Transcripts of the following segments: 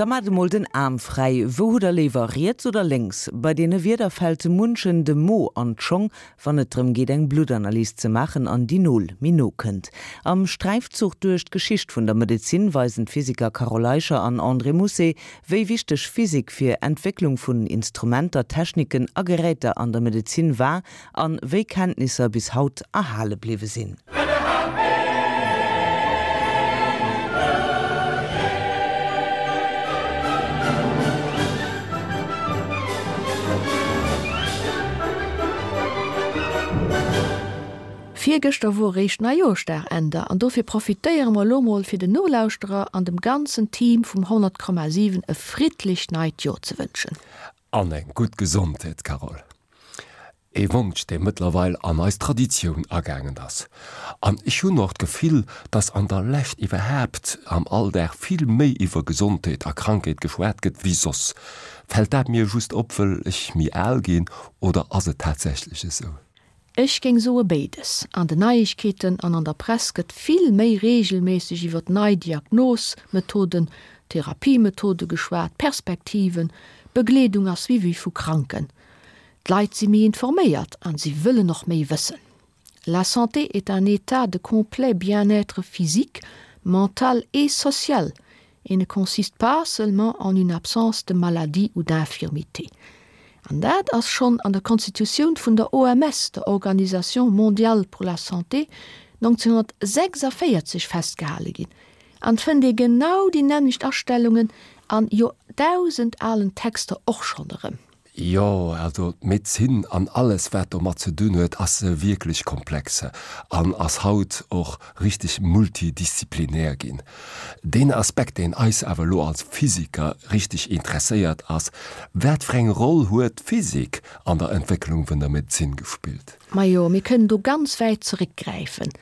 Da maacht emol den Aarm fräi. Wou hutt der léiwer, riets oder lénks? Bei deene Wieder fält munchen de Mo an d'Schong, wann et drëm geet eng Bluttanalys ze maachen an déi Nol méi no kënnt. Am Sträifzuch duerch d'Geschicht vun der Medezin weisen d'Physiker Carole Eicher an André Mousset, wéi wichteg Physik fir Entwécklung vun Instrumenter, Techniken a Geräter an der Medezin war an wéi Kenntnisser bis haut erhale bliwwe sinn. Virgëschter wor eréischt Neijoerschdag, Änder, an dofir profitéiere mer elo mol fir den Nolauschterer an dem ganzen Team vum 100,7 e friddlecht neit Joer ze wënschen. An eng gutt Gesondheet, Carole. Ee Wonsch, dee mëttlerweil an eis Traditioun agaangen ass. An ech hunn och d'Gefill, dass an der Lescht iwwerhaapt am Alldag vill méi iwwer Gesondheet a Krankheet geschwat gëtt wéi soss. Fält dat mir just op, wëll ech méi al ginn, oder ass et tatsächlech esou? Ech géing soe béides. An den Neiegkeeten an an der Press gëtt vill méi reegelméisseg iwwer nei Diagnosmethoden, Therapiemethode geschwat, Perspektiven, Begleedung a Suivi vu Kranken. D'Leit si méi informéiert an si wëllen och méi wëssen. La santé est un état de complet bien-être physique, mental et social et ne consiste pas seulement en une absence de maladie ou d'infirmité. An dat ass schonn an der Konstitutioun vun der OMS, der Organisation mondiale pour la santé, 1946 festgehale ginn. An 't fënnt ee genau déi nämmlecht Astellungen an joerdausendalen Texter och schonn erëm. Jo, also d'Medezin an alles wat domat ze dunn huet ass wierklech komplex an ass haut och richteg multidisziplinär ginn. Deen Aspekt deen eis awer elo als Physiker richteg interesséiert ass, wat fir eng Roll huet d'Physik an der Entwécklung vun der Medezin gespillt? Majo, mir kënnen do ganz wäit zeréckgräifen.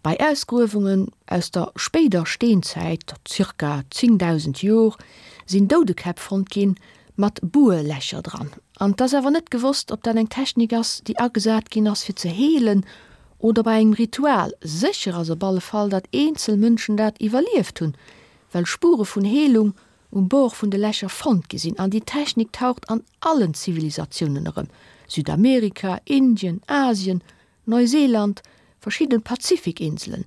Bei Ausgruewungen aus der spéider Steenzäit, zirka 10.000 Jor, sinn Doudekäpp fonnt ginn, mat Buerlächer dran. An 't ass awer net gewosst, ob dat eng Technik ass, déi agesat ginn ass, fir ze heelen oder bei engem Ritual. Sécher ass op alle Fall, datt eenzel Mënschen dat iwwerlieft hunn, well Spure vun Heelung um Bord vun de Lächer fonnt gi sinn. An déi Technik taucht an allen Zivilisatiounen erëm, Südamerika, Indien, Asien, Neuseeland, verschidden Pazifikinselen.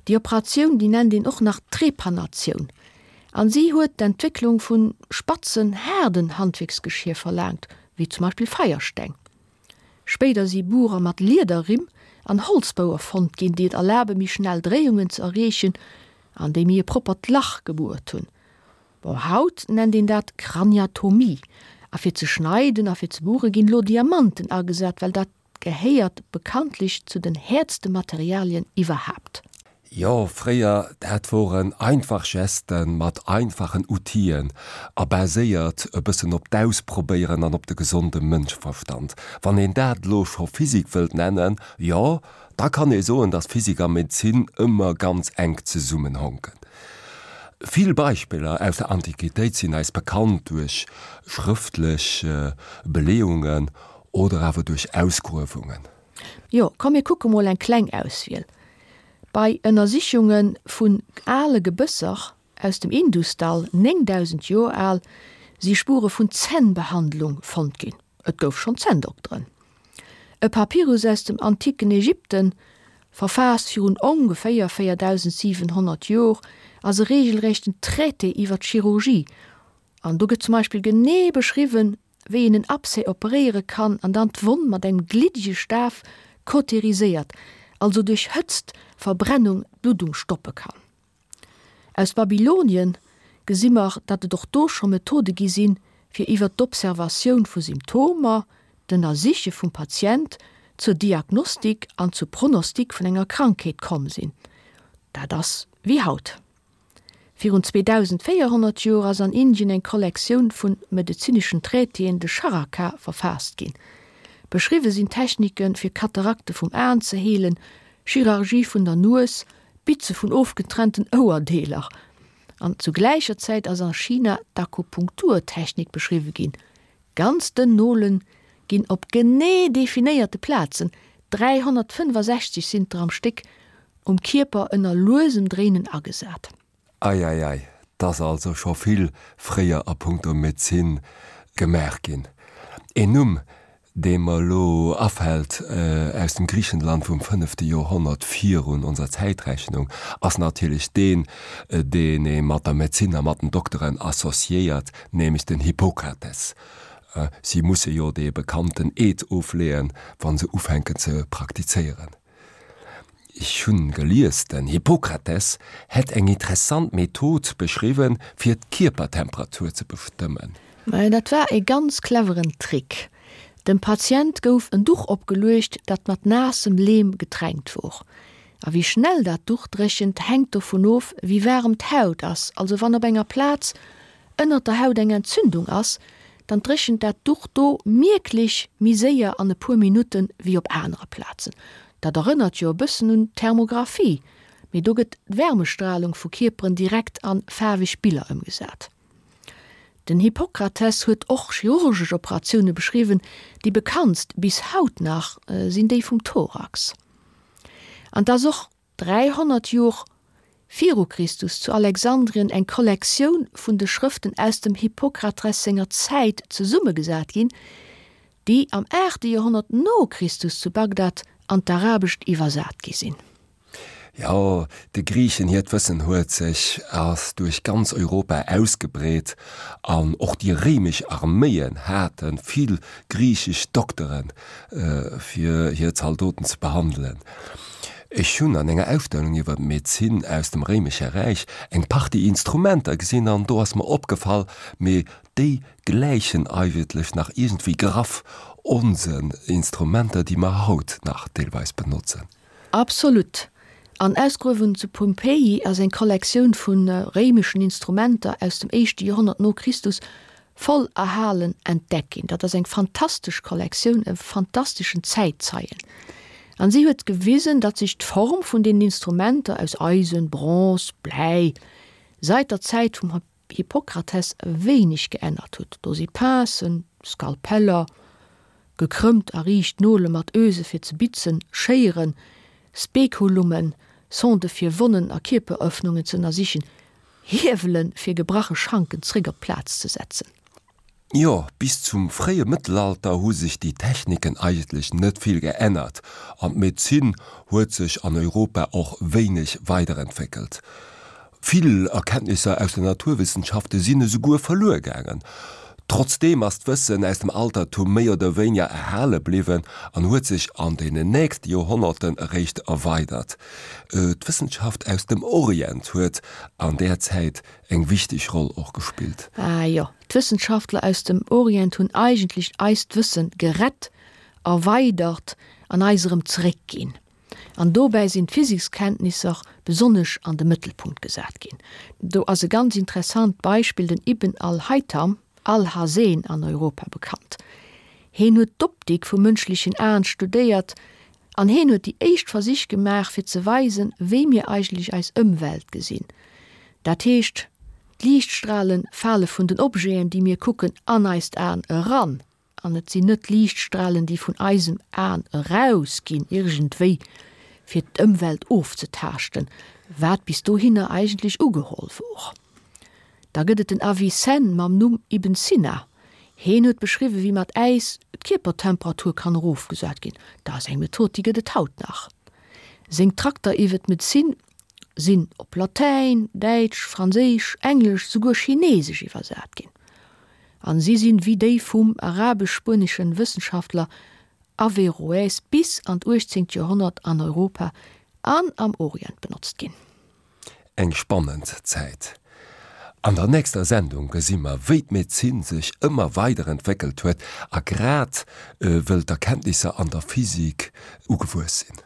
Déi Operatioun, déi nennt een och nach Trepanatioun, an si huet d'Entwécklung vun spatzen, haarden Handwierksgeschier verlaangt, wéi zum Beispill Feiersteng. Spéider si Burer mat Liederrimm an Holzbou erfonnt ginn, déi et erlabe méi schnell Dréiungen ze erreechen an déi méi e proppert Lach gebuert hunn. Bon, haut nennt een dat Kraniatomie. A fir ze schneiden a fir ze buere ginn elo Diamanten agesat, well dat gehéiert bekanntlech zu den häertste Materialien iwwerhaapt. Jo, fréier, dat woren einfach Gesten mat einfachen Outien a baséiert e bëssen op d'Ausprobéieren an op de gesonde Mënscheverstand. Wann een dat elo scho Physik wëllt nennen, jo, da kann ee soen, dass Physik a Medezin ëmmer ganz enk zesummenhonken. Vill Beispiller aus der Antiquitéit sinn eis bekannt duerch schrëftlech Beleeungen Oder awer duerch Ausgruewungen. Jo, komm mir kucke mol eng kleng Auswiel. Bei Ënnersichunge vun ale Gebësser aus dem Indusdall, 9000 Joer al, si Spure vun Zännbehandlung fonnt ginn. Et gouf schonn Zänndokteren. E Papyrus aus dem antiken Ägypten, verfaasst virun ongeféier 4700 Jor, ass e reegelrechten Traité iwwer d'Chirurgie. An do gëtt zum Beispill genee beschriwwen, wéi een en Abcès operéiere kann an dann d'Wonn mat engem gliddege Staf kauteriséiert, also duerch Hëtzt, Verbrennung, d'Bluddung stoppe kann. Aus Babylonien gesi mer, datt et och do scho Methode gi sinn, fir iwwer d'Observatioun vu Symptomer, d'Ënnersiche vum Patient, zur Diagnostik an zur Pronostik vun enger Krankheet komm sinn. Dat ass wéi haut. Virun 2400 Joer ass an Indien eng Kollektioun vun medezineschen Traitéen, de Charaka, verfaasst ginn. Beschriwwe sinn Techniken, fir Katarakte vum Aen ze heelen, Chirurgie vun der Nues, Bitze vun ofgetrennten Ouerdeeler. An zu gläicher Zäit ass a China d'Akupunkturtechnik beschriwwe ginn, Ganz dënn Nolen ginn op genee definéierte Plazen, 365 sinn der am Stéck, um Kierper ënner luesem Dréinen agesat. Eieiei, 't ass also scho vill fréier a punkto Medezin gemaach ginn. Een Numm, dee mer elo afält aus dem Griichenland vum fënnefte Joerhonnert virun onser Zäitrechnung, ass natierlech deen, deen ee mat der Medezin a mat den Dokteren associéiert, nämlech den Hippokrates. Si musse jo dee bekannten Eed ofleeën, wa se ufänken ze praktizéieren. Ech hunn gelies, den Hippokrates hätt eng interessant Method beschriwwen, fir d'Kierpertemperatur ze bestëmmen. Mä dat war e ganz cleveren Trick. Dem Patient gouf en Duch opgeluecht, dat mat naassem Leem getränkt wor. A wéi schnell dat Duch dréchent, hänkt dovun of, wéi waarem d'Haut ass. Also wann op enger Plaz ënnert der Haut eng Entzündung ass, dann dréchent dat Duch do mierklech méi séier an e puer Minutten wéi op anere Plazen. Dat erënnert jo e bëssen un d'Thermographie, mee do gëtt d'Wärmestralung vu Kierperen direkt an faarweg Biller ëmgesat. Den Hippokrates huet och chirurgesch Operatioune beschriwwen, déi bekanntst bis haut nach sinn déi vum Thorax. An 't ass och 300 Jor viru Christus zu Alexandrien eng Kollektioun vun de Schrëften aus dem Hippokrates senger Zäit zesummegesat ginn, déi am aachte Joerhonnert no Christus zu Bagdad an d'Arabescht iwwersat gi sinn. Jo, de Griichen hiert Wëssen huet sech ass duerch ganz Europa ausgebreet an och déi réimesch Arméien hate vill griichesch Dokteren, fir hir Zaldoten ze behandelen. Ech hunn an enger Ausstellung iwwer d'Medezin aus dem Réimesche Räich eng Partie Instrumenter gesinn an do ass mer opgefall, mee déi gläichen eigentlech nach iergendwéi graff onsen Instrumenter, déi mer haut nach deelweis benotzen. Absolut. An Ausgruewungen zu Pompeji ass eng Kollektioun vu réimeschen Instrumenter aus dem éischte Joerhonnert no Christus voll erhalen entdeckt ginn. Dat ass eng fantastesch Kollektioun, e fantasteschen Zäitzeien. An si huet gewisen, datt sech d'Form vun deenen Instrumenter aus Eisen, Bronze, Bläi seit der Zäit vum Hippokrates wéineg geännert huet. Do si Pincen, Skalpeller, gekrëmmt a riicht Nole mat Öse fir ze bitzen, Schéieren, Spekulummen, Sonde fir Wonnen a Kierperëffnungen ze ënnersichen, Hiewelen, fir gebrache Schanken zréck op d'Plaz ze setzen. Jo, bis zum fréie Mëttelalter hu sech déi Techniken eigentlech net vill geännert an d'Medezin huet sech an Europa och wéineg weiderentwéckelt. Vill Erkenntnisser aus den Naturwissenschafte sinn esouguer verluer gaangen. Trotzdeem ass d'Wëssen aus dem Altertum méi oder wéiniger erhale bliwwen an huet sech an deenen nächste Joerhonnerten eréischt erweidert. D'Wëssenschaft aus dem Orient huet an där Zäit eng wichteg Roll och gespillt. Ah jo, d'Wëssenschaftler aus dem Orient hunn eigentlech eist Wëssen gerett, erweidert an eis erëm zeréckginn. An dobäi sinn d'Physikskenntnisser besonnesch an de Mëttelpunkt gesat ginn. Do ass e ganz interessant Beispill den Ibn al-Haytham, Alhazen an Europa bekannt. Heen huet d'Optik vum mënschlechen Aen studéiert an heen huet déi éischt Versich gemaach fir ze weisen, wéi mir eigentlech eis Ëmwelt gesinn. Dat heescht, d'Liichtstrale fale vun den Objeten, déi mir kucken, an eist Aen eran. An et sinn net d'Liichtstralen, déi vun eisem Aen erausginn, iergendwéi fir d'Ëmwelt ofzetaaschten, wat bis dohinner eigentlech ugeholl wor. Da gëtt et den Avicenne mam Numm Ibn Sina. Heen huet beschriwwen, wéi mat Äis d'Kierpertemperatur kann erofgesat ginn. Dat ass eng Method, déi gëtt et haut nach. Seng Trakter iwwe d'Medezin sinn op Latäin, Däitsch, Franséisch, Englesch, souguer Chinesesch iwwersat ginn. An si sinn, wéi déi vum arabesch-spueneschen Wëssenschaftler Averroès bis an d'uechtzéngt Joerhonnert an Europa an am Orient benotzt ginn. Eng spannend Zäit. An der nächster Sendung gesi mer, wéi d'Medezin sech ëmmer weider entwéckelt huet a grad wëll d'Erkenntnisser an der Physik ugewuess sinn.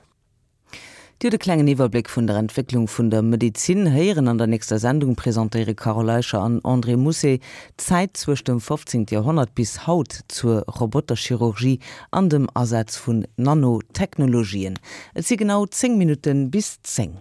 Dir hutt e klengen Iwwerbléck vun der Entwécklung vun der Medezin héieren. An der nächster Sendung presentéiere Carole Eicher an André Mousset d'Zäit zwëscht dem 15. Joerhonnert bis haut zur Roboterchirurgie an dem Asaz vun Nanotechnologien. Et si genau 10 Minutte bis 10.